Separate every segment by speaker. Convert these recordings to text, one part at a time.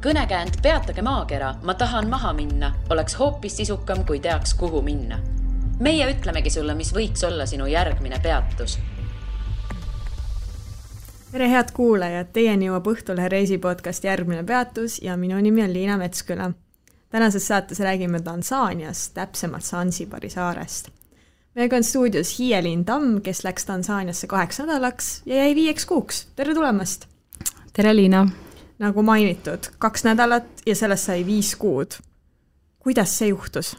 Speaker 1: Kõnekäänd Peatage maakera, ma tahan maha minna, oleks hoopis sisukam, kui teaks, kuhu minna. Meie ütlemegi sulle, mis võiks olla sinu järgmine peatus.
Speaker 2: Tere head kuulajad, teieni jõuab Õhtulehe reisipodcast Järgmine peatus ja minu nimi on Liina Metsküla. Tänases saates räägime Tansaaniast, täpsemalt Sansibari saarest. Meiega on stuudios Hiielin Tamm, kes läks Tansaaniasse 8 nädalaks ja jäi 5 kuuks. Tere tulemast!
Speaker 3: Tere Liina!
Speaker 2: Nagu mainitud, 2 nädalat ja sellest sai 5 kuud. Kuidas see juhtus?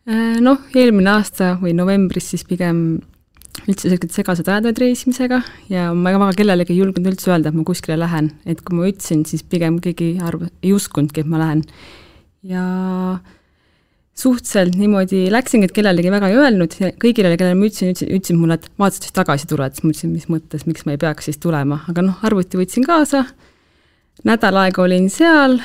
Speaker 3: Eelmine aasta või novembris siis pigem üldse segased ajad reisimisega ja ma väga kellelegi ei julgenud üldse öelda, et ma kuskile lähen. Et kui ma ütlesin, siis pigem keegi ei uskundki, et ma lähen. Ja suhteliselt niimoodi läksingi, et kellelegi väga ei öelnud. Kõigile, kellele ma ütlesin mulle, et vaatasid, siis tagasi tuled. Siis ma ütlesin, mis mõttes, miks ma ei peaks siis tulema. Aga arvuti võtsin kaasa. Nädal aega olin seal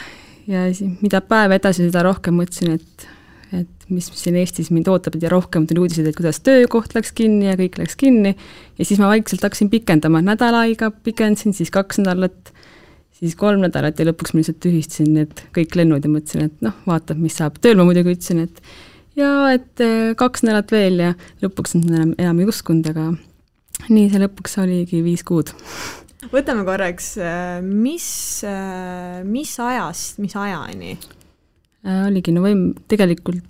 Speaker 3: ja mida päev edasi, seda rohkem mõtlesin, et mis siin Eestis mind ootab ja rohkem tuli uudised, et kuidas töökoht läks kinni ja kõik läks kinni. Ja siis ma vaikselt hakkasin pikendama. Nädal aega pikendasin, siis 2 nädalat, siis 3 nädalat ja lõpuks ma lihtsalt tühistasin need kõik lennud ja mõtlesin, et vaatab, mis saab. Tööl ma muidugi ütlesin, et 2 nädalat veel ja lõpuks enam ei uskunud, aga nii see lõpuks oligi 5 kuud.
Speaker 2: Võtame korraks, mis ajast, mis ajani?
Speaker 3: Oligi tegelikult,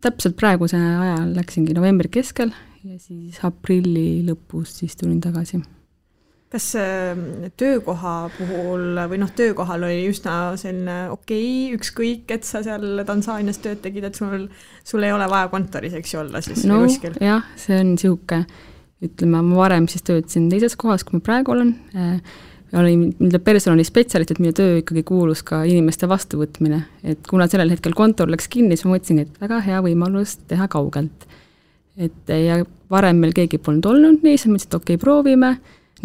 Speaker 3: täpselt praeguse ajal läksingi novembri keskel ja siis aprilli lõpus siis tulin tagasi.
Speaker 2: Kas töökoha puhul või töökohal oli üsna selline ükskõik, et sa seal Tansaanias tööd tegid, et sul ei ole vaja kontoris, eks olla siis või kuskil?
Speaker 3: Jah, see on sihuke, ütleme, ma varem siis töötasin teises kohas, kui ma praegu olen. Olin personali spetsialist, et minu töö ikkagi kuulus ka inimeste vastuvõtmine. Et kuna sellel hetkel kontor läks kinni, siis ma mõtlesin, et väga hea võimalus teha kaugelt. Ja varem meil keegi polnud olnud nii, siis mõtlesin, et proovime.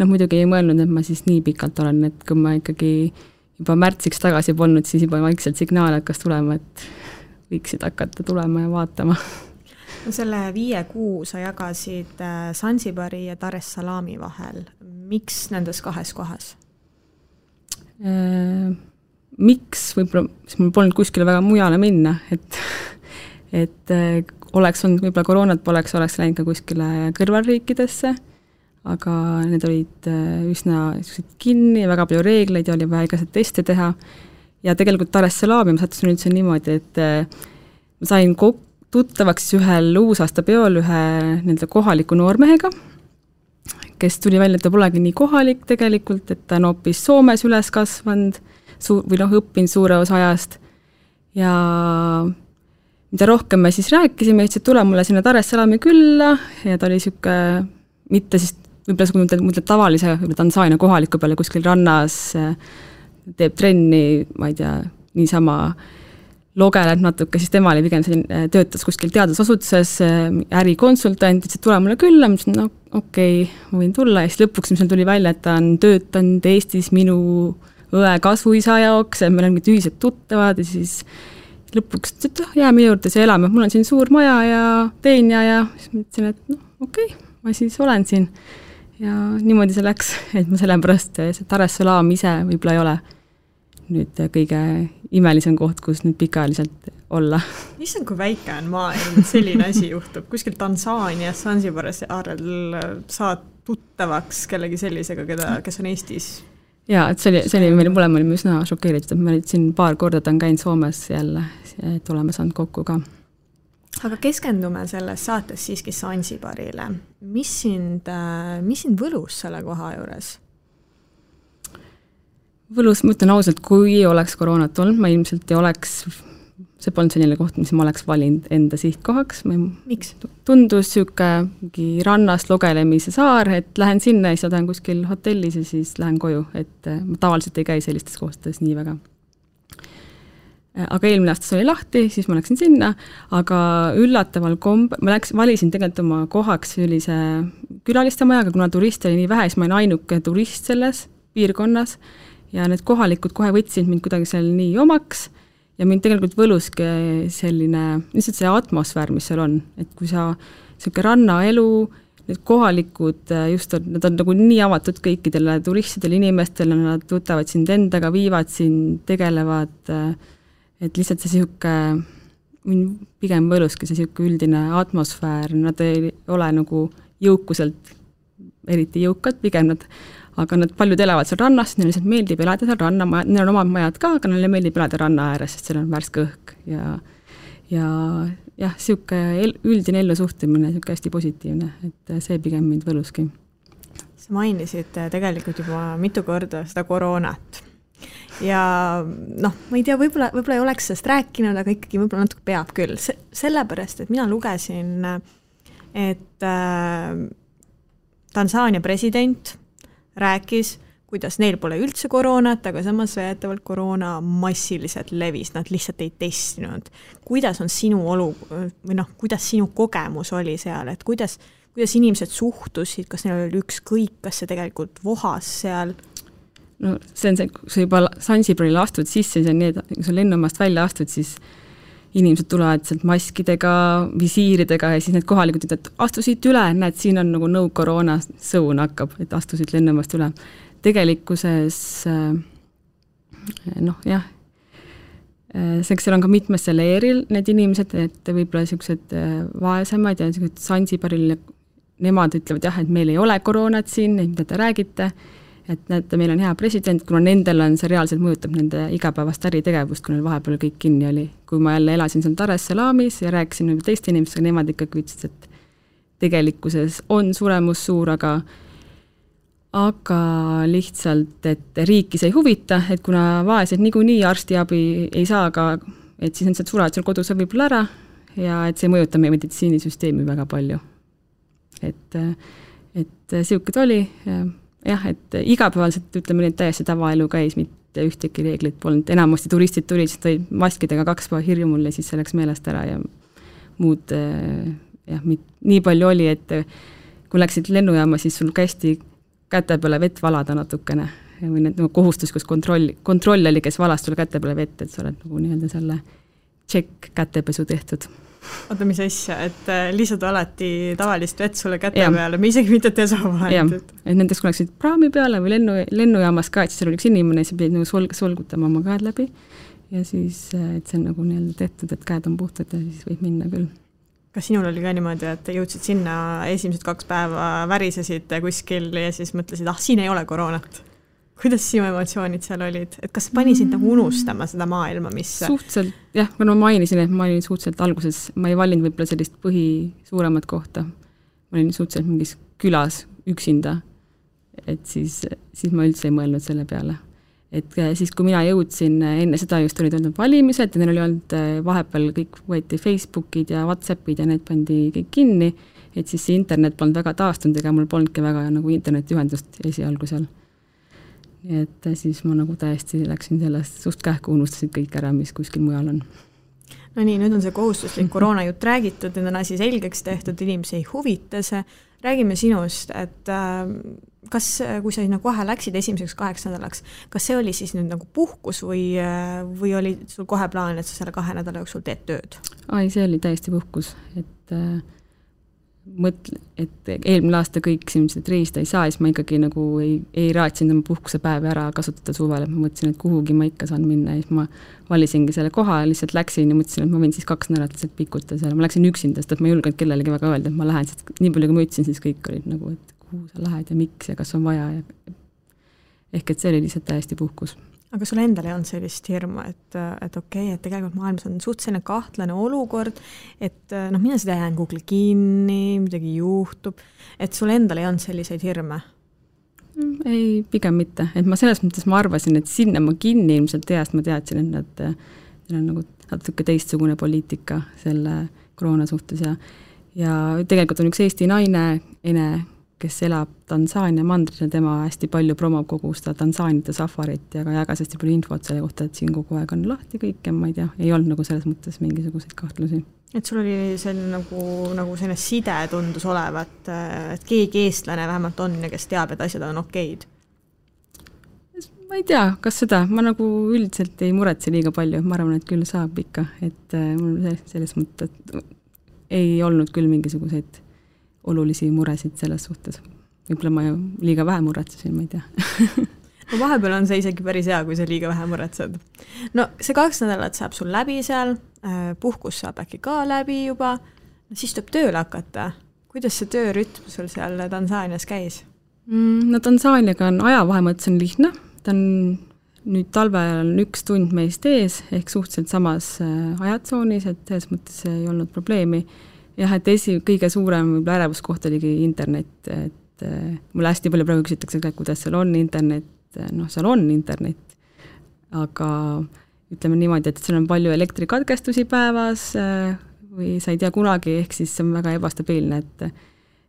Speaker 3: Muidugi ei mõelnud, et ma siis nii pikalt olen, et kui ma ikkagi juba märtsiks tagasi polnud, siis juba vaikselt signaal hakkas tulema, et võiksid hakata tulema ja vaatama.
Speaker 2: Selle 5 kuu sa jagasid Sansibari ja Dar es Salaami vahel. Miks nendes 2 kohas?
Speaker 3: Miks? Võib-olla, siis mul polnud kuskile väga mujale minna, et oleks olnud, võib-olla koroonat poleks läinud ka kuskile kõrvalriikidesse, aga need olid üsna kinni, väga palju reegleid ja oli vaja igased teste teha. Ja tegelikult Dar es Salaami ma sattusin üldse niimoodi, et ma sain tuttavaks ühel uusaasta peol ühe kohaliku noormehega, kes tuli välja, et ta polegi nii kohalik tegelikult, et ta on hoopis Soomes üles kasvanud või õppinud suure osa ajast. Ja mida rohkem me siis rääkisime, ütles, et tule mulle sinna Dar es Salaami külla ja ta oli siuke, mitte siis võib-olla mõtled tavalise Tansaania kohaliku peale kuskil rannas, teeb trenni, ma ei tea, niisama logeleb natuke, siis tema oli pigem töötas kuskil teadusasutuses, ärikonsultant, ütles, et tule mulle külla, ma ütlesin, ma võin tulla ja siis lõpuks mis tuli välja, et ta on töötanud Eestis minu õe kasvuisa jaoks, et meil on ühised tuttavad ja siis lõpuks jää minu juurde see elame, mul on siin suur maja ja teenja ja siis ma ütlesin, et ma siis olen siin ja niimoodi see läks, et ma sellepärast see Dar es Salaam ise võib-olla ei ole nüüd kõige imelisem koht, kus nüüd pikaajaliselt olla.
Speaker 2: Issand, kui väike on maailm, selline asi juhtub. Kuskil Tansaanias, Sansibaris aarel saad tuttavaks kellegi sellisega, kes on Eestis.
Speaker 3: Jaa, et see oli meil mõlema olime üsna šokeeritud, et ma siin paar korda on käinud Soomes jälle, et oleme saanud kokku ka.
Speaker 2: Aga keskendume selles saates siiski Sansibarile. Mis sind võlus selle koha juures?
Speaker 3: Võlus, ma ütlen ausalt, kui ei oleks koroonat olnud, ma ilmselt ei oleks, see polnud selline koht, mis ma oleks valinud enda sihtkohaks.
Speaker 2: Miks?
Speaker 3: Tundus siuke rannast logelemise saar, et lähen sinna ja siis olen kuskil hotellis ja siis lähen koju, et ma tavaliselt ei käi sellistes kohtades nii väga. Aga eelmine aastas oli lahti, siis ma läksin sinna, aga üllataval ma valisin tegelikult oma kohaks sellise külaliste majaga, kuna turiste oli nii vähe, siis ma olin ainuke turist selles piirkonnas ja need kohalikud kohe võtsid mind kuidagi seal nii omaks ja mind tegelikult võluski selline, lihtsalt see atmosfäär, mis seal on, et kui sa selline rannaelu, need kohalikud just, nad on nagu nii avatud kõikidele turistidele, inimestele, nad võtavad sind endaga, viivad sind, tegelevad, et lihtsalt see sihuke, pigem võluski see sihuke üldine atmosfäär, nad ei ole nagu jõukuselt eriti jõukad, pigem nad, aga nad paljud elavad seal rannas, neile lihtsalt meeldib elada seal ranna, neil on omad majad ka, aga neile meeldib elada ranna ääres, sest seal on värske õhk ja jah, sihuke üldine ellusuhtumine, sihuke hästi positiivne, et see pigem mind võluski.
Speaker 2: Sa mainisid tegelikult juba mitu korda seda koroonat ja noh, ma ei tea, võib-olla ei oleks sellest rääkinud, aga ikkagi võib-olla natuke peab küll, sellepärast, et mina lugesin, et Tansaania president rääkis, kuidas neil pole üldse koroonat, aga samas väidetavalt koroona massiliselt levis, nad lihtsalt ei testinud. Kuidas on sinu või noh, kuidas sinu kogemus oli seal, et kuidas inimesed suhtusid, kas neil oli ükskõik, kas see tegelikult vohas seal?
Speaker 3: No see on see, kui sa juba Sansibaril astud sisse, see on nii, et kui sa lennumast välja astud, siis inimesed tulevad sealt maskidega, visiiridega ja siis need kohalikud ütlevad, et astusid üle, näed, siin on nagu no koroona sõun hakkab, et astusid lennumast üle. Tegelikkuses noh, jah, seal on ka mitmesse leeril need inimesed, et võib-olla sellised vaesemad ja Sansibaril nemad ütlevad jah, et meil ei ole koroonat siin, mida te räägite, et näete, meil on hea president, kuna nendel on see reaalselt mõjutab nende igapäevast äritegevust, kui neil vahepeal kõik kinni oli. Kui ma jälle elasin seal Dar es Salaamis ja rääkisin teiste inimestega, nemad ikkagi ütlesid, et tegelikkuses on suremus suur, aga lihtsalt, et riiki see ei huvita, et kuna vaesed niikuinii arstiabi ei saa, aga et siis nad surevad seal kodus võib-olla ära ja et see mõjutab meie meditsiinisüsteemi väga palju. Et siukad oli jah, et igapäevaselt ütleme, et täiesti tavaelu käis, mitte ühtegi reeglit polnud. Enamasti turistid tulid, siis tõid maskidega 2 päeva hirju mulle, siis see läks meelest ära ja muud jah, nii palju oli, et kui läksid lennujaama, siis sul kästi käte peale vett valada natukene või need kohustus, kus kontroll oli, kes valas sulle käte peale vett, et sa oled nagu nii-öelda selle tšekk kätepesu tehtud.
Speaker 2: Oota, mis asja, et lihtsalt alati tavalist vett sulle käte peale, me isegi mitte desovahendid.
Speaker 3: Et nendeks kui läksid praami peale või lennujaamas ka, et siis oli üks inimene, siis pidid nagu solgutama oma käed läbi ja siis, et see on nagu nii-öelda tehtud, et käed on puhtad ja siis võib minna küll.
Speaker 2: Kas sinul oli ka niimoodi, et jõudsid sinna esimesed 2 päeva värisesid kuskil ja siis mõtlesid, siin ei ole koroonat? Kuidas sinu emotsioonid seal olid? Et kas pani sind nagu unustama seda maailma, mis...
Speaker 3: Suhteliselt, jah, kui ma mainisin, et ma olin suhteliselt alguses, ma ei valinud võib-olla sellist suuremat kohta. Ma olin suhteliselt mingis külas üksinda, et siis ma üldse ei mõelnud selle peale. Et siis, kui mina jõudsin, enne seda just olid olnud valimised ja neil oli olnud vahepeal kõik võeti Facebookid ja Whatsappid ja need pandi kõik kinni, et siis see internet polnud väga taastunud ega mul polnudki väga nagu internetiühendust esialgu seal. Et siis ma nagu täiesti läksin sellest suht kähku, unustasid kõik ära, mis kuskil mujal on.
Speaker 2: No nii, nüüd on see kohustuslik koroonajutt räägitud, nüüd on asi selgeks tehtud, inimesi ei huvita see. Räägime sinust, et kas, kui sa kohe läksid esimeseks 8 nädalaks, kas see oli siis nüüd nagu puhkus või oli sul kohe plaan, et sa selle 2 nädala jooksul teed tööd?
Speaker 3: Ai, see oli täiesti puhkus, et eelmine aasta kõik simsid reisida ei saa, siis ma ikkagi nagu ei raatsinud oma puhkuse päevi ära kasutada suvel, et ma mõtlesin, et kuhugi ma ikka saan minna ja siis ma valisingi selle koha ja lihtsalt läksin ja mõtlesin, et ma võin siis 2 nädalat lihtsalt pikuta seal. Ma läksin üksinda, sest et ma ei julgenud kellelegi väga öelda, et ma lähen, sest nii palju kui ma ütlesin, siis kõik olid nagu, et kuhu sa lähed ja miks ja kas on vaja ehk et see oli lihtsalt täiesti puhkus.
Speaker 2: Aga sul endal ei olnud sellist hirmu, et okei, et tegelikult maailmas on suhteliselt kahtlane olukord, et mina seda jään Google kinni, midagi juhtub, et sul endal ei olnud selliseid hirme?
Speaker 3: Ei, pigem mitte. Et ma selles mõttes ma arvasin, et sinna ma kinni ilmselt teast ma teadsin, et neil on nagu natuke teistsugune poliitika selle koroona suhtes ja tegelikult on üks Eesti naine, Ene, kes elab Tansaania mandril ja tema hästi palju promob kogu seda Tansaanite safarit ja ka jagas hästi palju infot selle kohta, et siin kogu aeg on lahti kõik ja ma ei tea, ei olnud nagu selles mõttes mingisuguseid kahtlusi.
Speaker 2: Et sul oli selline nagu selline side tundus olevat, et keegi eestlane vähemalt on ja kes teab, et asjad on okeid?
Speaker 3: Ma ei tea, kas seda, ma nagu üldiselt ei muretse liiga palju, ma arvan, et küll saab ikka, et mul selles mõttes ei olnud küll mingisuguseid olulisi muresid selles suhtes. Võib-olla ma liiga vähe muretsesin, ma ei tea.
Speaker 2: No vahepeal on see isegi päris hea, kui sa liiga vähe muretsed. No see 2 nädalat saab sul läbi seal, puhkus saab äkki ka läbi juba, no siis tuleb tööle hakata. Kuidas see töörütm sul seal Tansaanias käis?
Speaker 3: No Tansaaniaga on ajavahe mõttes on lihtne, ta on nüüd talvel on 1 tund meist ees, ehk suhteliselt samas ajatsoonis, et selles mõttes ei olnud probleemi. Jah, et kõige suurem ärevuskoht oligi internet, et mulle hästi palju praegu küsitakse, kuidas seal on internet, noh, seal on internet, aga ütleme niimoodi, et seal on palju elektrikatkestusi päevas või sa ei tea kunagi, ehk siis see on väga ebastabiilne,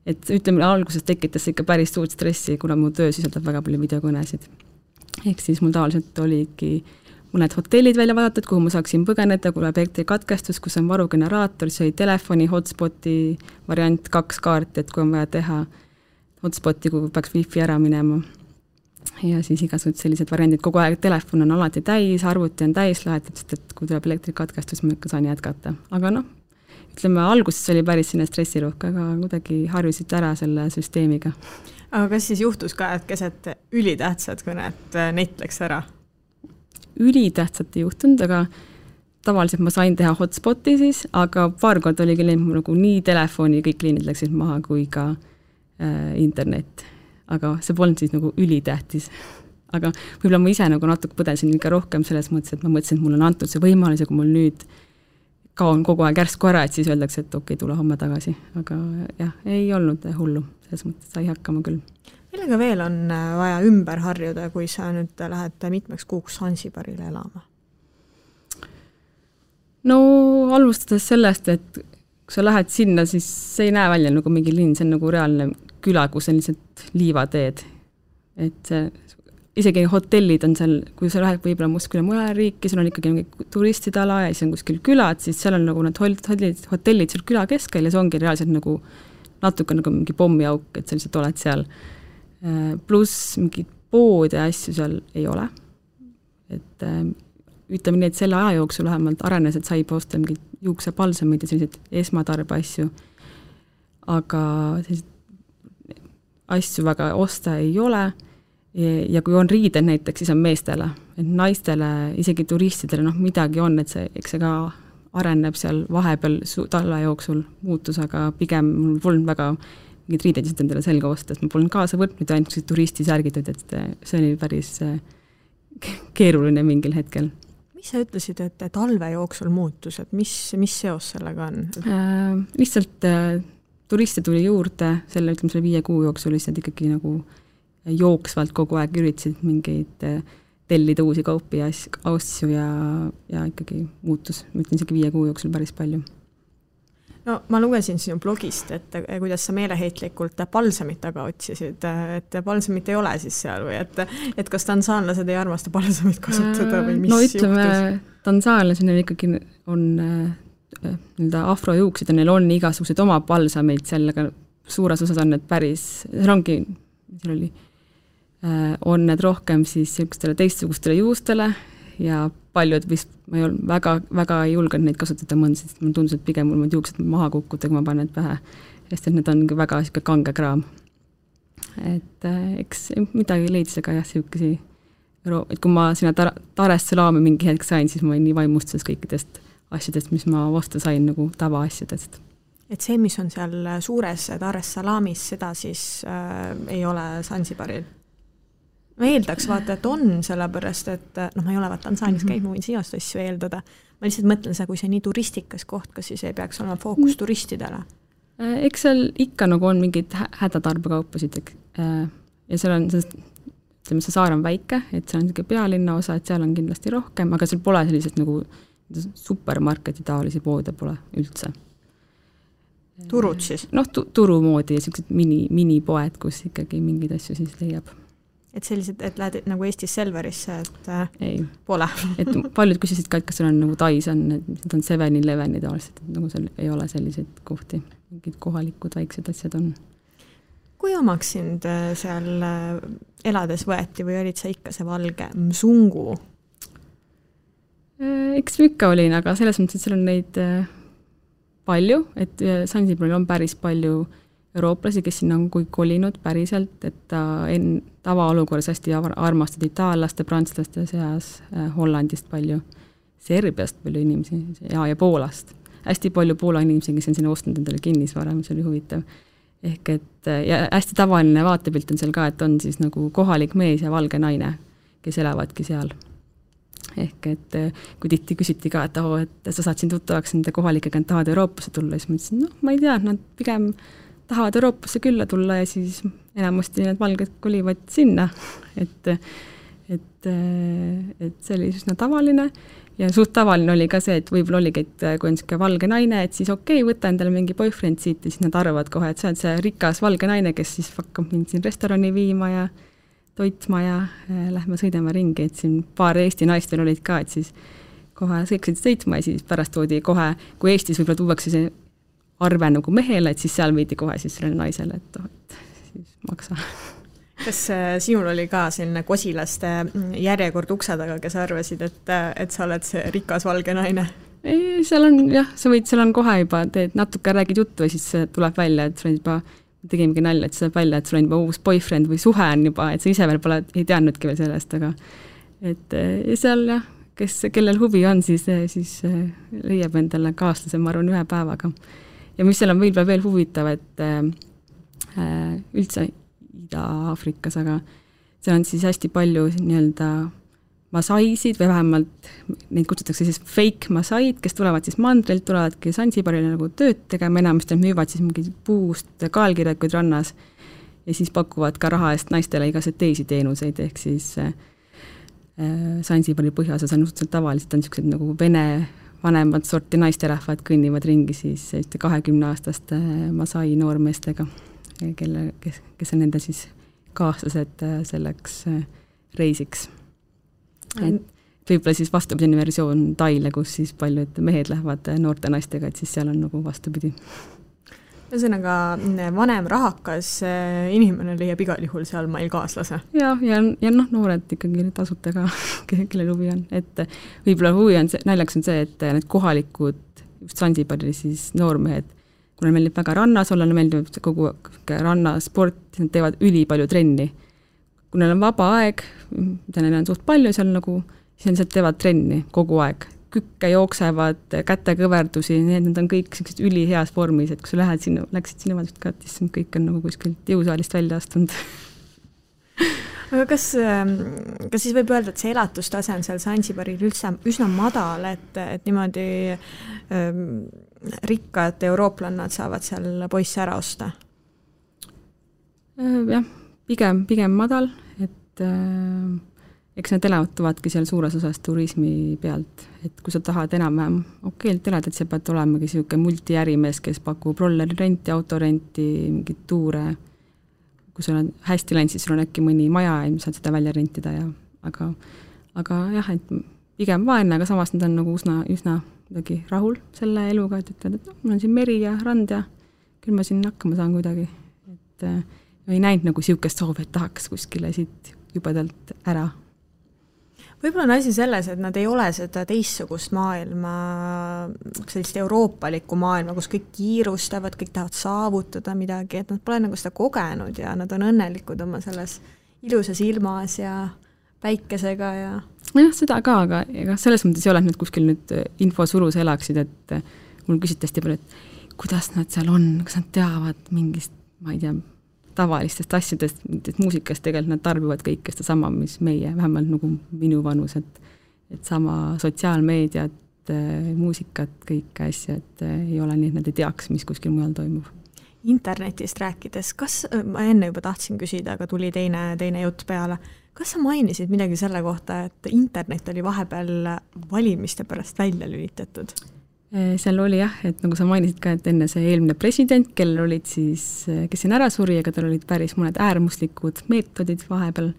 Speaker 3: et ütleme, alguses tekitas ikka päris suurt stressi, kuna mu töö sisaldab väga palju videokõnesid. Ehk siis mul tavaliselt oligi mõned hotellid välja vaadatud, kuhu ma saaksin põgeneda, kui läheb elektrikatkestus, kus on varugeneraator, see oli telefoni, hotspoti variant 2 kaarti, et kui on vaja teha hotspoti, kui peaks wifi ära minema. Ja siis igasugused sellised variandid, kogu aeg telefon on alati täis, arvuti on täis laetud, sest et kui tuleb elektrikatkestus, ma ikka saan jätkata. Aga noh, ütleme, alguses oli päris sinne stressiruhk, aga kuidagi harjusid ära selle süsteemiga.
Speaker 2: Aga kas siis juhtus ka, et keset ülitähtsad kõnet net läks ära?
Speaker 3: Ülitähtsat ei juhtunud, aga tavaliselt ma sain teha hotspoti siis, aga paar kord oli küll nagu nii telefoni, kõik liinid läksid maha kui ka internet. Aga see polnud siis nagu ülitähtis. Aga võib-olla ma ise nagu natuke põdesin ikka rohkem selles mõttes, et ma mõtlesin, et mul on antud see võimalus ja kui mul nüüd kaon kogu aeg järsku ära, et siis öeldakse, et okei, tule homme tagasi. Aga jah, ei olnud hullu, selles mõttes sai hakkama küll.
Speaker 2: Millega veel on vaja ümber harjuda, kui sa nüüd lähed mitmeks kuuks Sansibarile elama? No alustades sellest, et kui sa lähed sinna, siis see ei näe välja nagu mingi linn, see on nagu reaalne küla, kus on lihtsalt liivateed. Et isegi hotellid on seal, kui sa lähed võib-olla muskile mõne riiki, seal on ikkagi mingi turistide ala ja siis on kuskil külad, siis seal on nagu need hotellid seal küla keskel ja see ongi reaalselt nagu natuke nagu mingi pommiauk, et sa lihtsalt oled seal. Pluss mingid pood ja asju seal ei ole. Et ütleme nii, et selle aja jooksul vähemalt arenes, et sai posta mingid juuksepalsamid ja sellised esmatarbe asju. Aga sellised asju väga osta ei ole ja kui on riided näiteks, siis on meestele, et naistele, isegi turistidele, noh midagi on, et eks see ka areneb seal vahepeal talve jooksul muutus, aga pigem mul polnud väga mingid riided lihtsalt endale selga osta, et ma polnud kaasa võtnud ja ainult turistisärgitud, et see oli päris keeruline mingil hetkel. Mis sa ütlesid, et talve jooksul muutus, et mis seos sellega on?
Speaker 3: Lihtsalt turiste tuli juurde, selle 5 kuu jooksul lihtsalt ikkagi nagu jooksvalt kogu aeg üritasid mingeid tellida uusi kaupi ja asju ja ikkagi muutus, ma ütlen isegi 5 kuu jooksul päris palju.
Speaker 2: No ma lugesin sinu blogist, et kuidas sa meeleheitlikult palsamit taga otsisid, et palsamit ei ole siis seal või et kas tansaanlased ei armasta palsamit kasutada või mis juhtus?
Speaker 3: No ütleme, tansaanlased ikkagi on afrojuuksid ja neil on igasugused oma palsameid seal, aga suures osas on need päris, on need rohkem siis teistsugustele juustele ja paljud vist, ma ei olnud väga ei julgenud neid kasutada mõnda, sest mul tundus, et pigem mul juuksed maha kukkuda, kui ma panen need pähe, sest et need on väga kange kraam. Et eks midagi leidis, aga jah, et kui ma sinna Dar-es-Salaami mingi hetk sain, siis ma olin nii vaimustus kõikidest asjadest, mis ma vastu sain nagu tavaasjadest.
Speaker 2: Et see, mis on seal suures Dar-es-Salaamis, seda siis ei ole Sansibaril? Ma eeldaks vaata, et on sellepärast, et ma ei ole Tansaanis käinud, ma võin sinust asju eeldada. Ma lihtsalt mõtlen seda, kui see nii turistikas koht, kas siis ei peaks olema fookus turistidele?
Speaker 3: Eks seal ikka nagu on mingid hädatarbekaupasid ja seal on, ütleme, see saar on väike, et seal on pealinna osa, et seal on kindlasti rohkem, aga seal pole sellised nagu supermarketi taolisi poode pole üldse.
Speaker 2: Turud siis?
Speaker 3: Noh, turu moodi ja sellised minipoed, kus ikkagi mingid asju siis leiab.
Speaker 2: Et sellised, et lähed nagu Eestis Selverisse, et
Speaker 3: ei.
Speaker 2: Pole.
Speaker 3: Et paljud küsisid ka, et kas seal on nagu Tais on, et on 7-11 tavaliselt, et nagu seal ei ole selliseid kohti, mingid kohalikud väiksed asjad on.
Speaker 2: Kui omaks sind seal elades võeti või olid sa ikka see valge msungu?
Speaker 3: Eks ikka olin, aga selles mõttes, et seal on neid palju, et Sansibaril on päris palju eurooplasi, kes sinna on kolinud päriselt, et ta tavaolukorras hästi armastad itaallaste, prantslaste seas, Hollandist palju, Serbiast palju inimesi ja Poolast. Hästi palju Poola inimesi, kes on sinna ostnud endale kinnisvara, mis oli huvitav. Ehk et ja hästi tavaline vaatepilt on seal ka, et on siis nagu kohalik mees ja valge naine, kes elavadki seal. Ehk et kui tihti küsiti ka, et sa saad siin tuttavaks nende kohalikega, et tahavad Euroopasse tulla, siis ma ütlesin, ma ei tea, nad pigem tahavad Euroopasse külla tulla ja siis enamasti need valged kolivad sinna, et see oli üsna tavaline ja suht tavaline oli ka see, et võib-olla oligi, et kui on niisugune valge naine, et siis võta endale mingi boyfriend siit ja siis nad arvavad kohe, et sa oled see rikas valge naine, kes siis hakkab mind siin restorani viima ja toitma ja lähme sõidame ringi, et siin paar Eesti naist veel olid ka, et siis kohe sõiksid sõitma ja siis pärast toodi kohe, kui Eestis võib-olla tuuakse see arve nagu mehele, et siis seal viidi kohe siis sellele naisele, et siis maksa.
Speaker 2: Kas sinul oli ka selline kosilaste järjekord ukse taga, kes arvasid, et sa oled see rikas valge naine?
Speaker 3: Ei, seal on jah, seal on kohe juba, teed natuke räägid juttu ja siis tuleb välja, et sul on juba, tegimegi nalja, et see tuleb välja, et sul on juba uus boyfriend või suhe on juba, et sa ise veel pole, ei teadnudki veel sellest, aga et seal jah, kellel huvi on, siis leiab endale kaaslase, ma arvan, ühe päevaga. Ja mis seal on veel huvitav, et üldse Ida-Aafrikas, aga seal on siis hästi palju nii-öelda masaisid või vähemalt neid kutsutakse siis fake masaid, kes tulevad siis mandrilt, tulevadki Sansibarile nagu tööd tegema, enamasti müüvad siis mingi puust kaalkirjakuid rannas ja siis pakuvad ka raha eest naistele igasuguseid teisi teenuseid, ehk siis Sansibari põhjaosas on suhteliselt tavaliselt on niisugused nagu vene vanemad sorti naisterahvad kõnnivad ringi siis 20-aastaste masai noormeestega, kes on nende siis kaaslased selleks reisiks. Et võib-olla siis vastupidine versioon Taile, kus siis paljud mehed lähevad noorte naistega, et siis seal on nagu vastupidi.
Speaker 2: Ühesõnaga, vanem rahakas inimene leiab igal juhul seal meil kaaslase.
Speaker 3: Ja noored ikkagi tasuta ka, kelle huvi on. Et võib-olla huvi on see, naljaks on see, et need kohalikud just Sansibari siis noormehed, kuna meeldib väga rannas olla, meeldib kogu rannasport, nad teevad ülipalju trenni. Kui neil on vaba aeg, mida neil on suht palju seal nagu, siis nad teevad trenni kogu aeg. Kükke jooksevad, kätekõverdusi, need on kõik sellised üliheas vormis, et kui sa läksid sinna vaadust ka, siis kõik on nagu kuskilt jõusaalist välja astunud.
Speaker 2: Aga kas siis võib öelda, et see elatustase on seal Sansibaril üsna madal, et niimoodi rikkad eurooplannad saavad seal poisse ära osta?
Speaker 3: Jah, pigem madal, et eks need elatuvadki seal suures osas turismi pealt, et kui sa tahad enam-vähem okeilt elada, et sa pead olemagi selline multiärimees, kes pakub rolleri renti, autorenti, mingid tuure, kui sul on hästi läinud, siis sul on äkki mõni maja ja saad seda välja rentida aga jah, et pigem vaene, aga samas nad on nagu üsna rahul selle eluga, et ütled, et mul on siin meri ja rand ja küll ma siin hakkama saan kuidagi, et ei näinud nagu siukest soovi, et tahaks kuskile siit jubedalt ära.
Speaker 2: Võib-olla on asi selles, et nad ei ole seda teistsugust maailma, sellist euroopalikku maailma, kus kõik kiirustavad, kõik tahavad saavutada midagi, et nad pole nagu seda kogenud ja nad on õnnelikud oma selles ilusas ilmas ja päikesega ja...
Speaker 3: Jah, seda ka, aga selles mõttes ei ole, et nad kuskil nüüd infosurus elaksid, et mul küsiti hästi palju, et kuidas nad seal on, kas nad teavad mingist, ma ei tea, tavalistest asjadest, muusikast tegelikult nad tarbivad kõike seda sama, mis meie, vähemalt nagu minu vanus, et sama sotsiaalmeediat, muusikat, kõike asja, et ei ole nii, et nad ei teaks, mis kuskil mujal toimub.
Speaker 2: Internetist rääkides, ma enne juba tahtsin küsida, aga tuli teine jutt peale, kas sa mainisid midagi selle kohta, et internet oli vahepeal valimiste pärast välja lülitatud?
Speaker 3: Seal oli jah, et nagu sa mainisid ka, et enne see eelmine president, kellel olid siis, kes siin ära suri, aga tal olid päris mõned äärmuslikud meetodid vahepeal,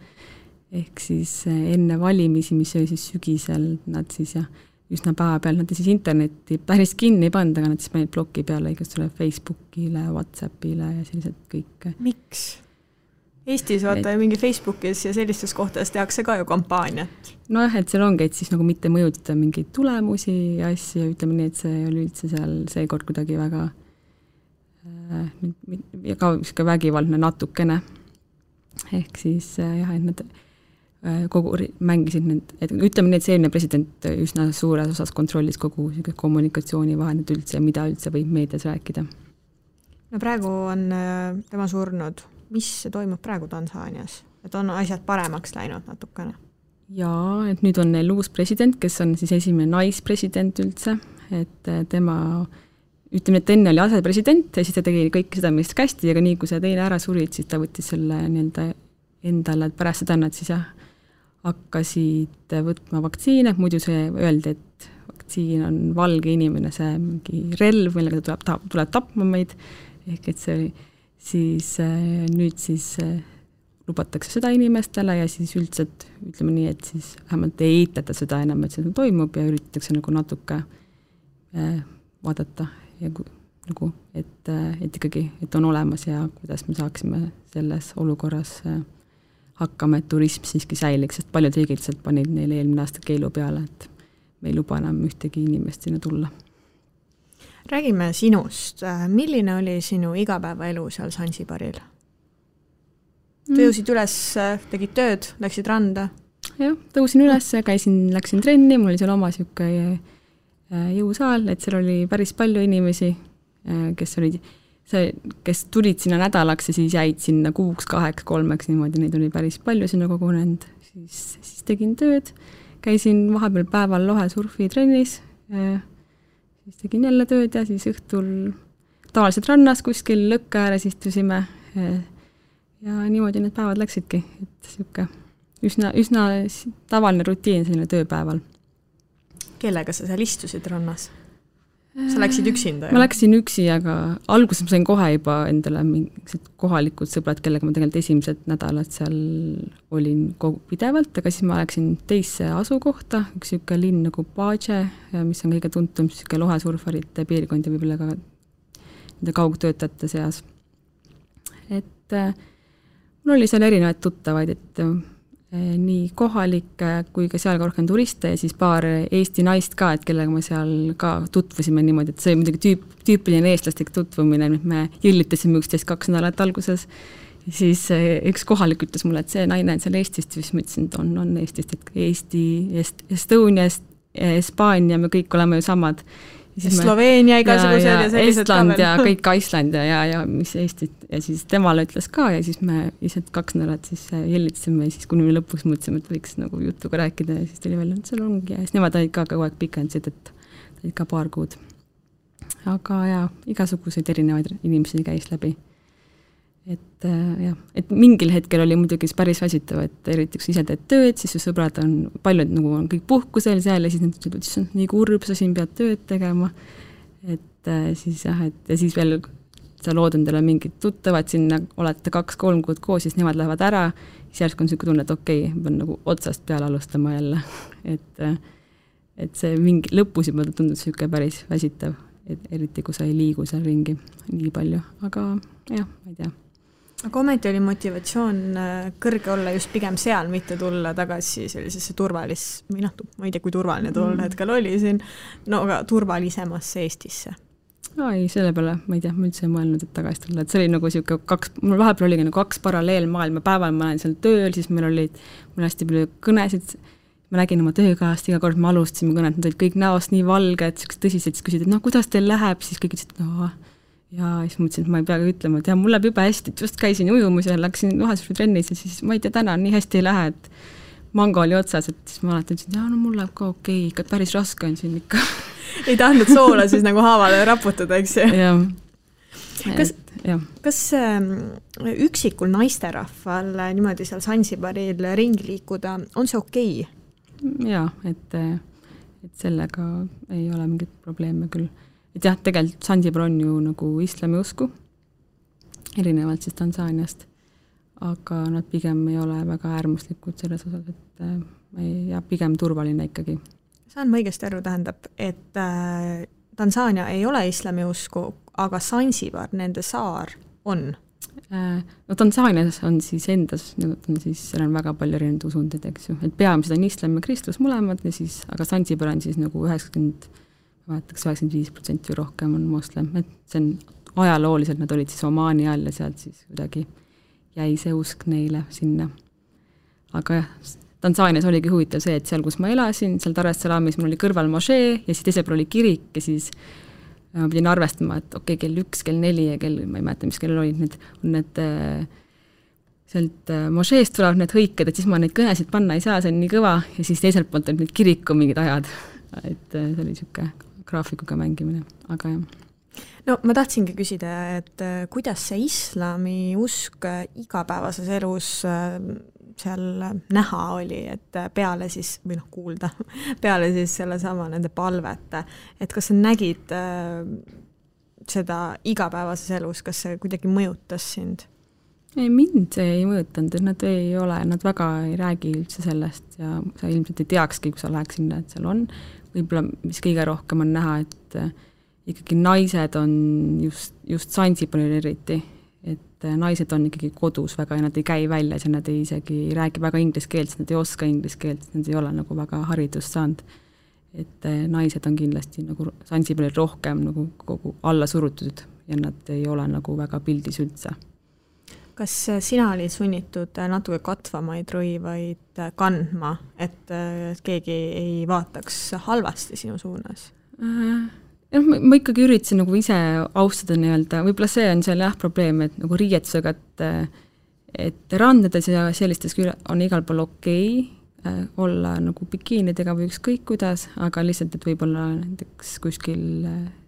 Speaker 3: ehk siis enne valimisi, mis oli siis sügisel, nad siis jah, üsna päeva peal, nad siis internetti päris kinni ei pannud, aga nad siis panid bloki peale igastule Facebookile, WhatsAppile ja sellised kõik.
Speaker 2: Miks? Eestis vaata mingi Facebookis ja sellistes kohtades tehakse ka ju kampaaniat.
Speaker 3: Nojah, et seal ongi, et siis nagu mitte mõjutada mingeid tulemusi ja asju, ütleme nii, et see oli üldse seal seekord kuidagi väga ja ka vägivaldne natukene. Ehk siis jah, et nad mängisid need, et ütleme nii, et see eelmine president üsna suures osas kontrollis kogu kommunikatsiooni vahendid üldse, mida üldse võib meedias rääkida.
Speaker 2: No praegu on tema surnud. Mis toimub praegu Tansaanias? Et on asjad paremaks läinud natukene?
Speaker 3: Jaa, et nüüd on neil uus president, kes on siis esimene naispresident üldse, et tema, ütleme, et enne oli asepresident ja siis ta tegi kõik seda, mis kästi, aga nii kui see teine ära surid, siis ta võttis selle nii-öelda endale, et pärast seda nad siis hakkasid võtma vaktsiine, muidu see öeldi, et vaktsiin on valge inimene, see mingi relv, millega ta tuleb tapma meid, ehk et see siis nüüd siis lubatakse seda inimestele ja siis üldselt ütleme nii, et siis vähemalt ei eitata seda enam, et see toimub ja üritatakse nagu natuke vaadata ja nagu, et ikkagi, et on olemas ja kuidas me saaksime selles olukorras hakkama, et turism siiski säiliks, sest paljud riigid panid neile eelmine aasta keelu peale, et me ei luba enam ühtegi inimest sinna tulla.
Speaker 2: Räägime sinust. Milline oli sinu igapäevaelu seal Sansibaril? Tõusid üles, tegid tööd, läksid randa?
Speaker 3: Jah, tõusin üles, läksin trenni, mul oli seal oma siuke jõusaal, et seal oli päris palju inimesi, kes tulid sinna nädalaks ja siis jäid sinna 6, 8, 3, niimoodi, neid oli päris palju sinna kogunenud. Siis tegin tööd, käisin vahepeal päeval lohesurfi trennis, siis tegin jälle tööd ja siis õhtul tavaliselt rannas kuskil lõkke ääres istusime ja niimoodi need päevad läksidki, et siuke üsna tavaline rutiin selline tööpäeval.
Speaker 2: Kellega sa seal istusid rannas? Sa läksid üksinda?
Speaker 3: Ma läksin üksi, aga alguses ma sain kohe juba endale mingised kohalikud sõbrad, kellega ma tegelikult esimesed nädalad seal olin pidevalt, aga siis ma läksin teisse asukohta, üks siuke linn nagu Paje, mis on kõige tuntum siuke lohesurfarite piirkond ja võib-olla ka nende kaugtöötajate seas. Et mul oli seal erinevaid tuttavaid, et nii kohalikke kui ka seal ka rohkem turiste ja siis paar Eesti naist ka, et kellega me seal ka tutvusime niimoodi, et see oli muidugi tüüpiline eestlastik tutvumine, me jõllitasime üksteist 2 nädalat alguses ja siis üks kohalik ütles mulle, et see naine on seal Eestist ja siis ma ütlesin, et on Eestist, et Eesti, Estonia, Hispaania, me kõik oleme ju samad.
Speaker 2: Sloveenia igasugused ja sellised
Speaker 3: Estland ja kõik Island ja mis Eestit ja siis temale ütles ka ja siis me lihtsalt 2 nädalat siis jällitasime ja siis kuni me lõpuks mõtlesime, et võiks nagu jutuga rääkida ja siis tuli välja, et seal ongi ja siis nemad olid ka kogu aeg pikendasid, et olid ka paar kuud. Aga igasuguseid erinevaid inimesi käis läbi. Et mingil hetkel oli muidugi päris väsitav, et eriti kui ise teed tööd, siis su sõbrad on, paljud nagu on kõik puhkusel seal ja siis nad ütlevad, et see on nii kurb, sa siin pead tööd tegema. Et siis et ja siis veel sa lood endale mingid tuttavad sinna, olete 2-3 kuud koos, siis nemad lähevad ära, siis järsku on selline tunne, et okei, pean nagu otsast peale alustama jälle. Et see mingi lõpus juba tundub selline päris väsitav, eriti kui sa ei liigu seal ringi nii palju, aga ma ei tea.
Speaker 2: Aga ometi oli motivatsioon kõrge olla just pigem seal, mitte tulla tagasi sellisesse ma ei tea, kui turvaline tol hetkel oli siin, no aga turvalisemasse Eestisse.
Speaker 3: Ei, selle peale, ma ei tea, ma üldse ei mõelnud, et tagasi tulla, et see oli nagu siuke mul vahepeal oligi nagu 2 paralleelmaailma, päeval ma olen seal tööl, siis meil hästi palju kõnesid, ma nägin oma töökaast, iga kord me alustasime kõnet, nad olid kõik näost nii valged, tõsised, siis küsid, et kuidas teil läheb, siis kõik ütlesid, ja siis mõtlesin, et ma ei peagi ütlema, et mul läheb juba hästi, et just käisin ujumusel, läksin lohesurfi trennis ja siis ma ei tea, täna nii hästi ei lähe, et mango oli otsas, et siis ma alati ütlesin, et mul läheb ka okei, ikka päris raske on siin ikka.
Speaker 2: Ei tahtnud soola siis nagu haavale raputada, eks ju? Kas üksikul naisterahval niimoodi seal Sansibaril ringi liikuda, on see okei?
Speaker 3: Jaa, et sellega ei ole mingit probleeme küll. Et jah, tegelikult Sansibar on ju nagu islami usku, erinevalt siis Tansaaniast, aga nad pigem ei ole väga äärmuslikud selles osas, et pigem turvaline ikkagi.
Speaker 2: Saan ma õigesti aru, tähendab, et Tansaania ei ole islami usku, aga Sansibar, nende saar, on?
Speaker 3: No Tansaanias on siis endas, seal on väga palju erinevaid usundid, eks ju, et peamiselt on islam ja kristlus mõlemad, ja siis, aga Sansibar on siis nagu 95% või rohkem on moslem, et see on ajalooliselt nad olid siis Omaani all ja sealt siis kuidagi jäi see usk neile sinna. Aga jah, Tansaanias oligi huvitav see, et seal, kus ma elasin, seal Dar es Salaamis mul oli kõrval mošee ja siis teisel pool oli kirik ja siis ma pidin arvestama, et okei, kell 1, kell 4 ja kell, ma ei mäleta, mis kell olid need sealt mošeest tulevad need hõiked, et siis ma neid kõnesid panna ei saa, see on nii kõva ja siis teiselt poolt olid need kiriku mingid ajad, et see oli niisugune graafikuga mängimine, aga jah.
Speaker 2: No ma tahtsingi küsida, et kuidas see islami usk igapäevases elus seal näha oli, et peale siis, või kuulda, peale siis selle sama nende palvete, et kas sa nägid seda igapäevases elus, kas see kuidagi mõjutas sind?
Speaker 3: Ei, mind see ei mõjutanud, nad ei ole, nad väga ei räägi üldse sellest ja sa ilmselt ei teakski, kui sa läheks sinna, et seal on. Võib-olla, mis kõige rohkem on näha, et ikkagi naised on just Zanzibaril eriti, et naised on ikkagi kodus väga ja nad ei käi väljas ja nad ei isegi räägi väga inglise keelt, sest nad ei oska inglise keelt, sest nad ei ole nagu väga haridust saanud. Et naised on kindlasti nagu Zanzibaril rohkem nagu kogu alla surutud ja nad ei ole nagu väga pildis üldse.
Speaker 2: Kas sina olid sunnitud natuke katvamaid rõivaid kandma, et keegi ei vaataks halvasti sinu suunas?
Speaker 3: Ma ikkagi üritasin nagu ise austada nii-öelda, võib-olla see on seal jah probleem, et nagu riietusega, et randades ja sellistes on igal pool okei olla nagu bikiinidega või ükskõik kuidas, aga lihtsalt, et võib-olla näiteks kuskil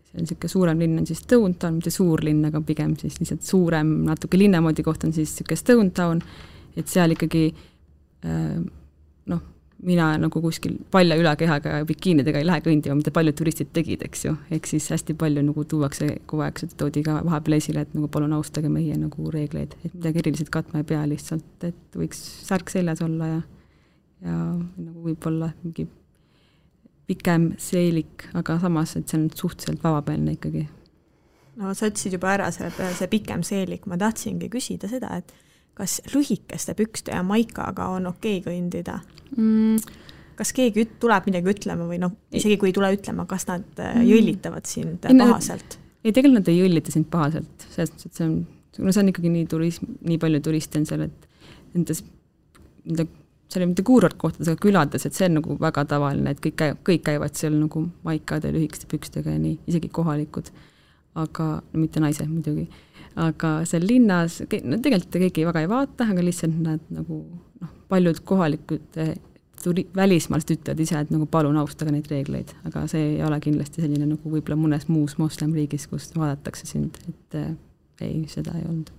Speaker 3: see on niisugune suurem linn on siis Stone Town, mitte suur linn, aga pigem siis lihtsalt suurem, natuke linnamoodi koht on siis niisugune Stone Town, et seal ikkagi mina nagu kuskil palja ülakehaga ja bikiinidega ei lähe kõndima, mida paljud turistid tegid, eks ju, ehk siis hästi palju nagu tuuakse kogu aeg, seda toodi ka vahepeal esile, et nagu palun austage meie nagu reegleid, et midagi eriliselt katma ei pea lihtsalt, et võiks särk seljas olla ja nagu võib-olla mingi pikem seelik, aga samas, et see on suhteliselt vavapealne ikkagi.
Speaker 2: No sa ütlesid juba ära see pikem seelik, ma tahtsingi küsida seda, et kas lühikeste pükste ja maikaga on okei kõndida? Kas keegi tuleb midagi ütlema või isegi kui ei tule ütlema, kas nad jõllitavad sind pahaselt?
Speaker 3: Ei, tegelikult nad ei jõllita sind pahaselt, sest see on ikkagi nii palju turiste on seal, et nendes seal ei mitte kuurortkohtades, aga külades, et see on nagu väga tavaline, et kõik käivad seal nagu maikade, lühikeste pükstega ja nii, isegi kohalikud, aga mitte naised muidugi. Aga seal linnas, tegelikult keegi väga ei vaata, aga lihtsalt nad nagu paljud kohalikud välismaalast ütlevad ise, et nagu palun austage neid reegleid, aga see ei ole kindlasti selline nagu võib-olla mõnes muus moslemriigis, kus vaadatakse sind, et ei, seda ei olnud.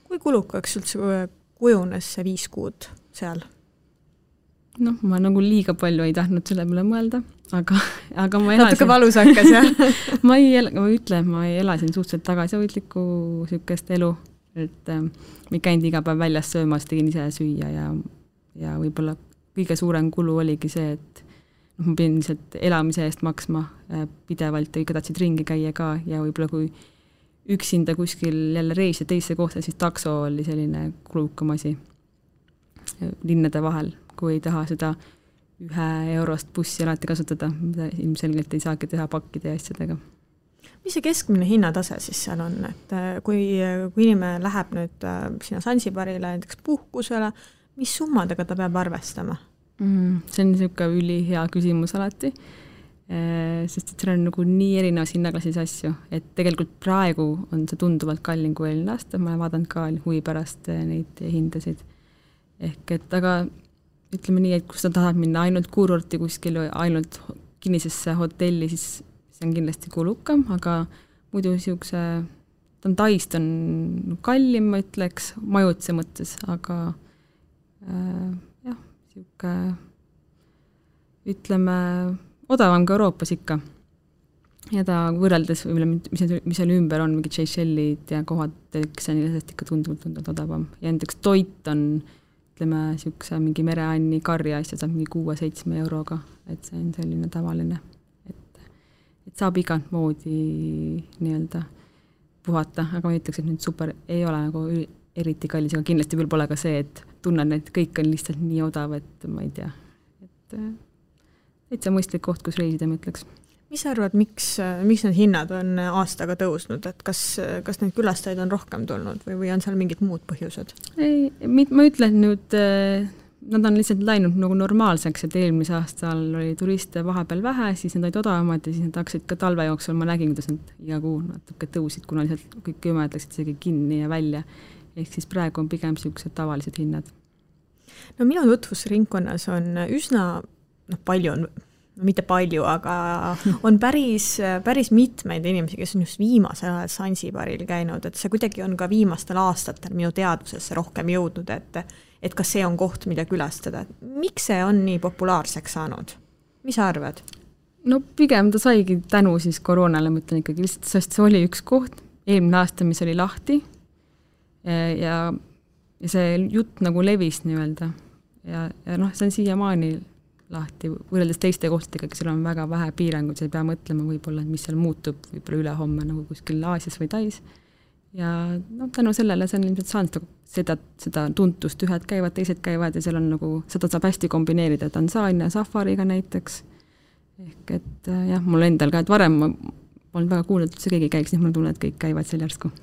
Speaker 2: Kui kulukaks üldse kujunes see 5 kuud seal?
Speaker 3: Ma nagu liiga palju ei tahtnud selle peale mõelda, aga ma elasin...
Speaker 2: Natuke valus hakkas, jah?
Speaker 3: ma ei elasin suhteliselt tagasihoidlikku sükest elu, et ma ei käinud iga päev väljas söömas, tegin ise süüa ja võib-olla kõige suurem kulu oligi see, et ma pidin lihtsalt elamise eest maksma pidevalt ja ikka tahtsid ringi käia ka ja võib-olla kui üksinda kuskil jälle reis ja teisse kohta, siis takso oli selline kulukam asi linnade vahel, kui ei taha seda 1 eurost bussi alati kasutada, mida ilmselgelt ei saagi teha pakkide ja asjadega.
Speaker 2: Mis see keskmine hinnatase siis seal on, et kui inimene läheb nüüd sinna Zanzibarile näiteks puhkusele, mis summadega ta peab arvestama?
Speaker 3: See on niisugune ülihea küsimus alati, sest et seal on nagu nii erinevas hinnaklassis asju, et tegelikult praegu on see tunduvalt kallim kui eelmine aasta, ma olen vaadanud ka huvi pärast neid hindasid. Ehk et aga ütleme nii, et kui sa tahad minna ainult kuurorti kuskil või ainult kinnisesse hotelli, siis see on kindlasti kulukam, aga muidu niisuguse Taist on kallim, ma ütleks, majutuse mõttes, aga jah, niisugune ütleme odavam ka Euroopas ikka. Ja ta võrreldes, mis seal ümber on, mingid Seychellid ja kohad, kes on ilmselt ikka tunduvalt odavam. Ja näiteks toit on ütleme, niisuguse mingi mereanni karja asja saab mingi 6-7 euroga, et see on selline tavaline, et saab igalt moodi nii-öelda puhata, aga ma ütleks, et nüüd super ei ole nagu eriti kallis, aga kindlasti veel pole ka see, et tunnen, et kõik on lihtsalt nii odav, et ma ei tea, et see on mõistlik koht, kus reisida, ma ütleks.
Speaker 2: Mis sa arvad, miks need hinnad on aastaga tõusnud, et kas neid külastajaid on rohkem tulnud või on seal mingid muud põhjused?
Speaker 3: Ei, ma ütlen nüüd, nad on lihtsalt läinud nagu normaalseks, et eelmise aastal oli turiste vahepeal vähe, siis nad olid odavamad ja siis nad hakkasid ka talve jooksul, ma nägin, kuidas nad iga kuu natuke tõusid, kuna lihtsalt kõik jõmed läksid isegi kinni ja välja. Ehk siis praegu on pigem sellised tavalised hinnad.
Speaker 2: No minu tutvusringkonnas on üsna, palju on, mitte palju, aga on päris mitmeid inimesi, kes on just viimasel ajal Sansibaril käinud, et see kuidagi on ka viimastel aastatel minu teadvusesse rohkem jõudnud, et kas see on koht, mida külastada. Miks see on nii populaarseks saanud? Mis sa arvad?
Speaker 3: No pigem ta saigi tänu siis koroonale, ma ütlen ikkagi lihtsalt, sest see oli üks koht, eelmine aasta, mis oli lahti ja see jutt nagu levis nii-öelda ja see on siiamaani lahti, võrreldes teiste kohtadega, seal on väga vähe piiranguid, sa ei pea mõtlema võib-olla, mis seal muutub võib-olla ülehomme nagu kuskil Aasias või Tais. Ja tänu sellele see on ilmselt saanud seda tuntust, ühed käivad, teised käivad ja seal on nagu, seda saab hästi kombineerida Tansaania safariga näiteks. Ehk et jah, mul endal ka, et varem ma olen väga kuulnud, et see keegi käiks, nii ma tunnen, et kõik käivad seal järsku.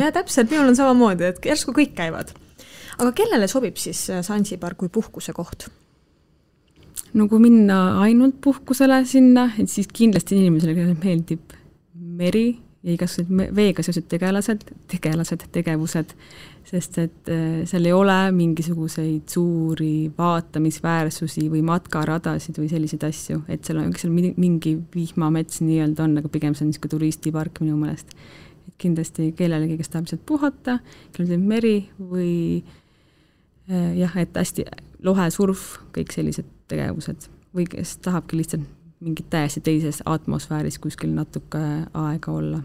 Speaker 2: Ja täpselt, minul on samamoodi, et järsku kõik käivad. Aga kellele sobib siis Sansibar kui puhkuse koht?
Speaker 3: No kui minna ainult puhkusele sinna, et siis kindlasti inimesele meeldib meri ja igasugused veega seosed tegevused, sest et seal ei ole mingisuguseid suuri vaatamisväärsusi või matkaradasid või selliseid asju, et seal on mingi vihmamets nii-öelda on, aga pigem see on niisugune turistipark minu meelest. Et kindlasti kellelegi, kes tahab lihtsalt puhata, kellel on meri või jah, et hästi lohesurf, kõik sellised tegevused või kes tahabki lihtsalt mingit täiesti teises atmosfääris kuskil natuke aega olla.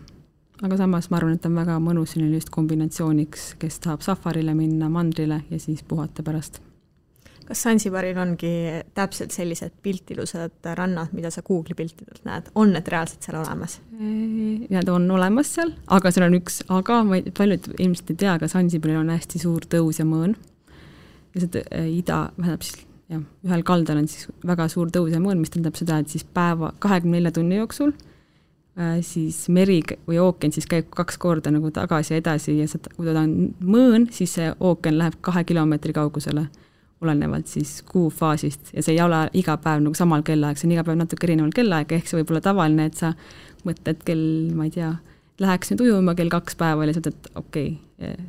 Speaker 3: Aga samas ma arvan, et on väga mõnus just kombinatsiooniks, kes tahab safarile minna, mandrile ja siis puhata pärast.
Speaker 2: Kas Sansibaril ongi täpselt sellised piltilused rannad, mida sa Google'i piltidelt näed? On need reaalselt seal olemas?
Speaker 3: Need on olemas seal, aga seal on üks, aga paljud ilmselt ei tea, aga Sansibaril on hästi suur tõus ja mõõn. Ja see ühel kaldal on siis väga suur tõus ja mõõn, mis tähendab seda, et siis päeva 24 tunni jooksul siis meri või ooken siis käib 2 korda nagu tagasi ja edasi ja kui ta on mõõn, siis see ooken läheb 2 kilomeetri kaugusele olenevalt siis kuufaasist ja see ei ole iga päev nagu samal kellaaeg, see on iga päev natuke erineval kellaaeg, ehk see võib olla tavaline, et sa mõtled ma ei tea, läheks nüüd ujuma kell 2 päeval ja sa ütled,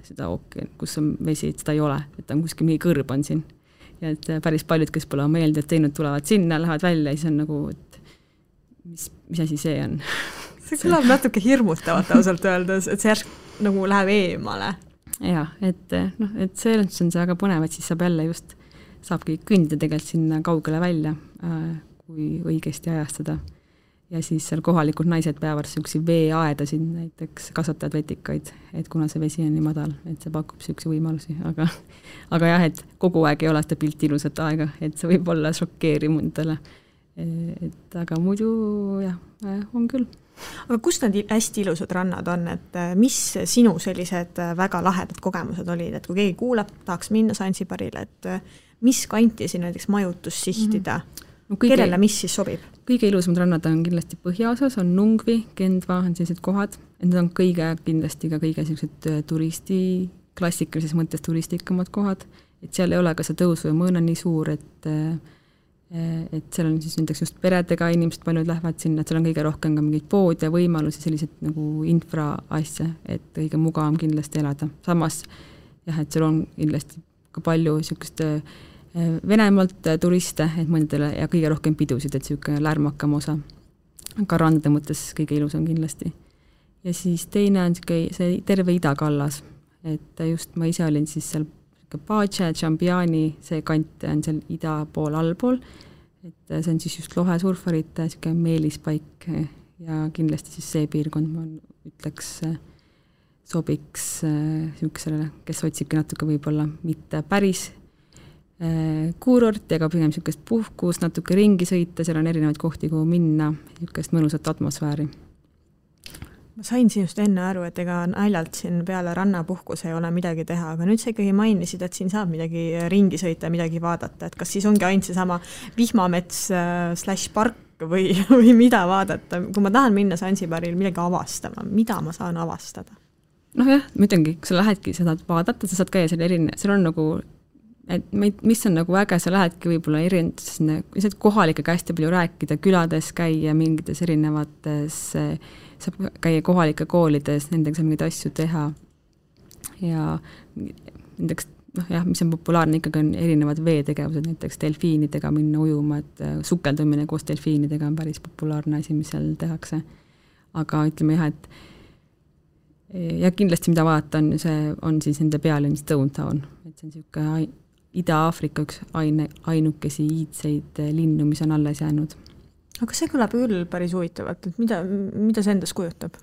Speaker 3: seda ooken, kus on vesi, et seda ei ole, et on kuskil mingi kõrb on siin. Ja et päris paljud, kes pole meelde teinud, tulevad sinna, lähevad välja ja siis on nagu, et mis asi see on?
Speaker 2: See kõlab natuke hirmutavat ausalt öeldes, et see järsk nagu läheb eemale.
Speaker 3: Ja, et see on see väga põnev, et siis saabki kõndida tegelikult sinna kaugele välja, kui õigesti ajastada. Ja siis seal kohalikud naised peavad sellised veeaedasid näiteks kasvatavad vetikaid, et kuna see vesi on nii madal, et see pakub selliseid võimalusi, aga jah, et kogu aeg ei ole seda pilti ilusat aega, et see võib olla šokeeriv mundale. Aga muidu jah, on küll.
Speaker 2: Aga kus need hästi ilusad rannad on, et mis sinu sellised väga lahedad kogemused olid, et kui keegi kuulab, tahaks minna Sansibarile, et mis kanti siin näiteks majutus sihtida? Kellele mis siis sobib?
Speaker 3: Kõige ilusamad rannad on kindlasti põhjaosas, on Nungvi, Kendva, on sellised kohad. Need on kindlasti ka kõige sellised klassikalises mõttes turistikamad kohad. Et seal ei ole ka see tõus või mõõna nii suur, et seal on siis näiteks just peredega inimesed paljud lähevad sinna, et seal on kõige rohkem ka mingid pood ja võimalusi, sellised nagu infraasja, et kõige mugavam kindlasti elada. Samas, jah, et seal on kindlasti ka palju sellised Venemaalt turiste, et mõndele ja kõige rohkem pidusid, et selline lärmakam osa. Ka randade mõttes kõige ilus on kindlasti. Ja siis teine on see terve idakallas, et just ma ise olin siis seal Pace, Chambiani, see kant on seal ida pool, allpool, et see on siis just lohesurfarite meelispaik ja kindlasti siis see piirkond, ma ütleks, sobiks sellisele, kes otsibki natuke võib-olla mitte päris kuurort, ega pigem sellisest puhkus, natuke ringi sõita, seal on erinevaid kohti, kuhu minna, sellisest mõnusat atmosfääri.
Speaker 2: Ma sain sinust enne aru, et ega naljalt siin peale rannapuhkus ei ole midagi teha, aga nüüd sa ikkagi mainisid, et siin saab midagi ringi sõita, midagi vaadata, et kas siis ongi ainult see sama vihmamets /park ikka või mida vaadata, kui ma tahan minna Zanzibaril midagi avastama, mida ma saan avastada?
Speaker 3: Noh jah, ma ütlengi, kui sa lähedki seda vaadata, sa saad käia seal on nagu, et mis on nagu äge, sa lähedki võib-olla lihtsalt kohalikega hästi palju rääkida, külades käia mingites erinevates, saab käia kohalike koolides, nendega saab mingeid asju teha ja nendeks mis on populaarne ikkagi on erinevad veetegevused, näiteks delfiinidega minna ujuma, et sukeldumine koos delfiinidega on päris populaarne asi, mis seal tehakse. Aga ütleme jah, et ja kindlasti mida vaadata on siis nende pealinn Stonetown, et see on niisugune Ida-Aafrika üks ainukesi iidseid linnu, mis on alles jäänud.
Speaker 2: Aga see kõlab küll päris huvitavalt, et mida see endas kujutab?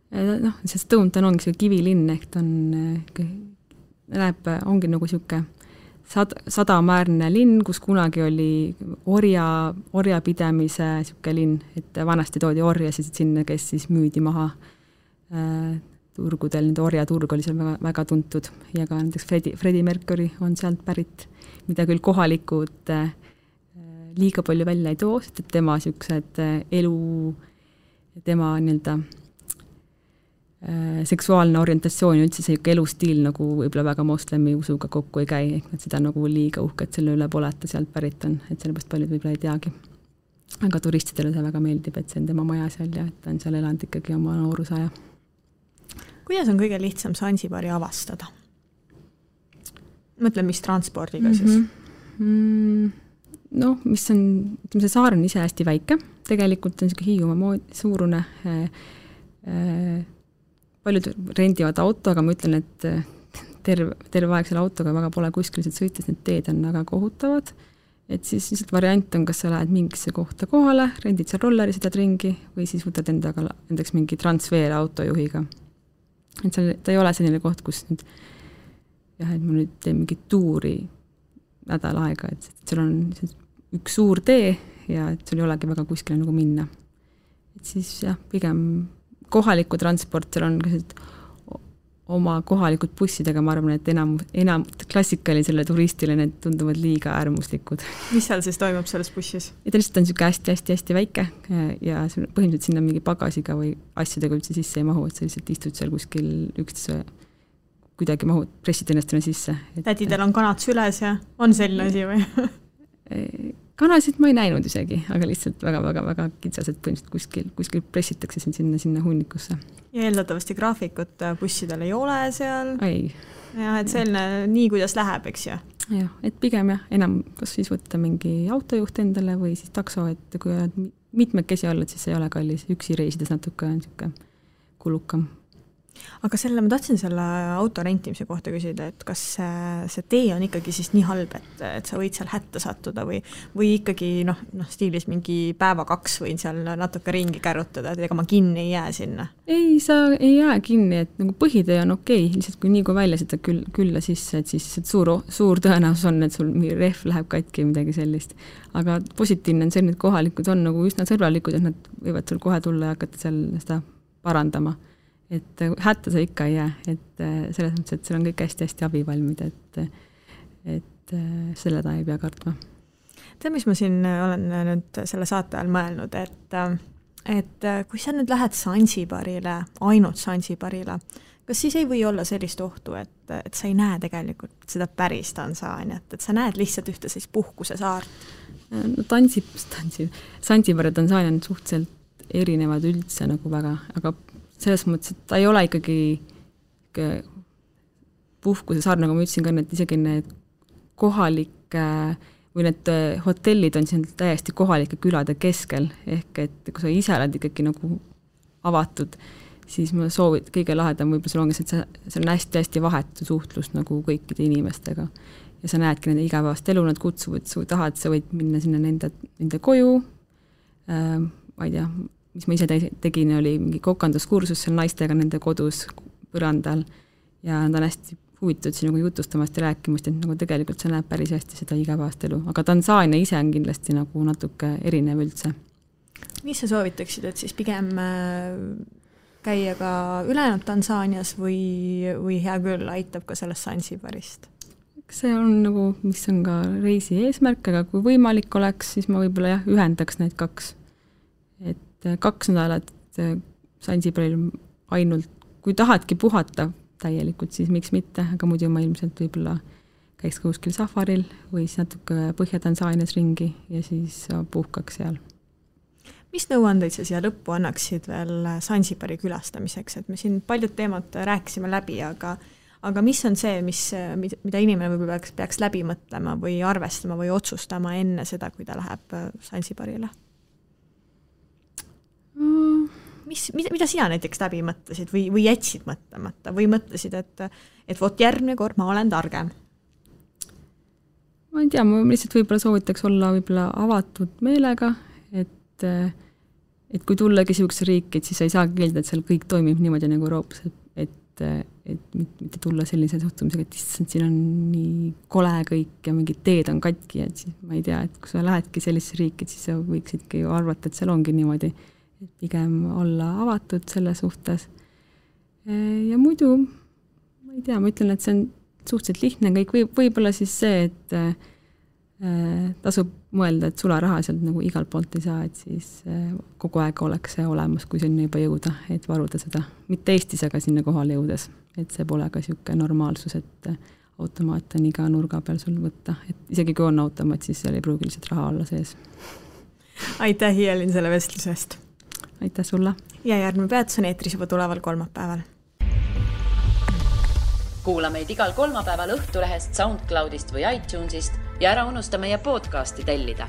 Speaker 3: See Stonetown ongi see kivilinn, ehk ta ongi nagu siuke sadamäärne linn, kus kunagi oli orjapidamise siuke linn, et vanasti toodi orjasid sinna, kes siis müüdi maha turgudel, nende orjaturg oli seal väga, väga tuntud ja ka näiteks Freddie Mercury on sealt pärit, mida küll kohalikud liiga palju välja ei too, et tema siuksed elu, tema nii-öelda seksuaalne orientatsioon ja üldse see elustiil nagu võib-olla väga moslemi usuga kokku ei käi, ehk nad seda nagu liiga uhket selle üle pole, et ta sealt pärit on, et sellepärast paljud võib-olla ei teagi. Aga turistidele see väga meeldib, et see on tema maja seal ja et ta on seal elanud ikkagi oma noorusaja.
Speaker 2: Kuidas on kõige lihtsam Zanzibari avastada? Mõtlen, mis transpordiga siis?
Speaker 3: Mis on, ütleme, see saar on ise hästi väike, tegelikult on Hiiumaa suurune, paljud rendivad auto, aga ma ütlen, et terve aeg selle autoga väga pole kuskil sõites, need teed on väga kohutavad, et siis lihtsalt variant on, kas sa lähed mingisse kohta kohale, rendid seal rolleri, sõidad ringi või siis võtad endaks mingi transfer autojuhiga. Et ta ei ole selline koht, kus nüüd, et ma nüüd teen mingi tuuri nädal aega, et seal on üks suur tee ja et sul ei olegi väga kuskile nagu minna. Et siis jah, pigem kohaliku transport, seal on oma kohalikud bussidega, ma arvan, et enam klassikali selle turistile need tunduvad liiga äärmuslikud.
Speaker 2: Mis seal siis toimub selles bussis?
Speaker 3: Ja ta lihtsalt on hästi väike ja põhimõtteliselt sinna mingi pagasiga või asjadega üldse sisse ei mahu, et sa lihtsalt istud seal kuskil üksteise kuidagi mahud, pressid ennast sisse.
Speaker 2: Tädidel on kanad süles ja on selline asi või?
Speaker 3: Kanasid ma ei näinud isegi, aga lihtsalt väga kitsas, et põhimõtteliselt kuskil pressitakse sinna hunnikusse.
Speaker 2: Ja eeldatavasti graafikut bussidel ei ole seal?
Speaker 3: Ei.
Speaker 2: Ja, et selline nii, kuidas läheb, eks ju?
Speaker 3: Jah, et pigem enam kas siis võtta mingi autojuht endale või siis takso, et kui oled mitmekesi olla, siis ei ole kallis. Üksi reisides natuke on niisugune kulukam.
Speaker 2: Aga ma tahtsin selle auto rentimise kohta küsida, et kas see tee on ikkagi siis nii halb, et sa võid seal hätta sattuda või ikkagi stiilis mingi päeva 2 võin seal natuke ringi kärutada, et ega ma kinni ei jää sinna?
Speaker 3: Ei, sa ei jää kinni, et nagu põhitee on okei, lihtsalt kui nii kui välja seda külla sisse, et siis suur tõenäosus on, et sul mingi rehv läheb katki midagi sellist. Aga positiivne on see, et kohalikud on nagu üsna sõbralikud, et nad võivad sul kohe tulla ja hakata seal seda parandama. Et hätta sa ikka ei jää, et selles mõttes, et seal on kõik hästi abivalmid, et selle ta ei pea kartma.
Speaker 2: Tead, mis ma siin olen nüüd selle saate ajal mõelnud, et kui sa nüüd lähed Zanzibarile, ainult Zanzibarile, kas siis ei või olla sellist ohtu, et sa ei näe tegelikult seda päris Tansaaniat, et sa näed lihtsalt ühte siis puhkuse saart?
Speaker 3: No Zanzibar ja Tansaania on suhteliselt erinevad üldse nagu väga, aga selles mõttes, et ta ei ole ikkagi puhkuse saar, nagu ma ütlesin ka, et isegi need kohalike või need hotellid on siin täiesti kohalike külade keskel, ehk et kui sa ise oled ikkagi nagu avatud, siis ma soovin, kõige lahedam võib-olla sul ongi, et see on hästi vahetu suhtlus nagu kõikide inimestega ja sa näedki nende igapäevast elu, nad kutsuvad, sa tahad, sa võid minna sinna nende koju, ma ei tea, mis ma ise tegin, oli mingi kokanduskursus seal naistega nende kodus põrandal ja nad on hästi huvitatud siin nagu jutustamast ja rääkimast, et nagu tegelikult see näeb päris hästi seda igapäevast elu. Aga Tansaania ise on kindlasti nagu natuke erinev üldse.
Speaker 2: Mis sa soovitaksid, et siis pigem käia ka ülejäänud Tansaanias või hea küll aitab ka sellest Zanzibarist?
Speaker 3: see on nagu, mis on ka reisi eesmärk, aga kui võimalik oleks, siis ma võib-olla ühendaks need 2. Et 2 nädalat Sansibaril ainult, kui tahadki puhata täielikult, siis miks mitte, aga muidu ma ilmselt võib-olla käiks kuskil safaril või siis natuke Põhja-Tansaanias ringi ja siis puhkaks seal.
Speaker 2: Mis nõuandeid sa siia lõppu annaksid veel Sansibari külastamiseks, et me siin paljud teemad rääkisime läbi, aga mis on see, mida inimene võib-olla peaks läbi mõtlema või arvestama või otsustama enne seda, kui ta läheb Sansibarile? Mida sina näiteks läbi mõtlesid või jätsid mõtlemata või mõtlesid, et vot järgmine kord ma olen targem?
Speaker 3: Ma ei tea, ma lihtsalt võib-olla soovitaks olla võib-olla avatud meelega, et kui tullagi sellisesse riiki, et siis sa ei saa keelda, et seal kõik toimib niimoodi nagu Euroopas, et mitte tulla sellise suhtumisega, et siin on nii kole kõik ja mingid teed on katki, et siis ma ei tea, et kui sa lähedki sellisesse riiki, et siis sa võiksidki arvata, et seal ongi niimoodi, et pigem olla avatud selle suhtes. Ja muidu, ma ei tea, ma ütlen, et see on suhteliselt lihtne kõik, võib-olla siis see, et tasub mõelda, et sularaha sealt nagu igal poolt ei saa, et siis kogu aeg oleks see olemas, kui sinna juba jõuda, et varuda seda. Mitte Eestis, aga sinna kohale jõudes, et see pole ka siuke normaalsus, et automaat on iga nurga peal sul võtta, et isegi kui on automaat, siis seal ei pruugi lihtsalt raha olla sees.
Speaker 2: Aitäh, Hiielin, selle vestlusest!
Speaker 3: Aitäh sulle!
Speaker 2: Ja järgmine peatus on eetris juba tuleval kolmapäeval.
Speaker 1: Kuula meid igal kolmapäeval Õhtulehest, SoundCloudist või iTunesist ja ära unusta meie podcasti tellida.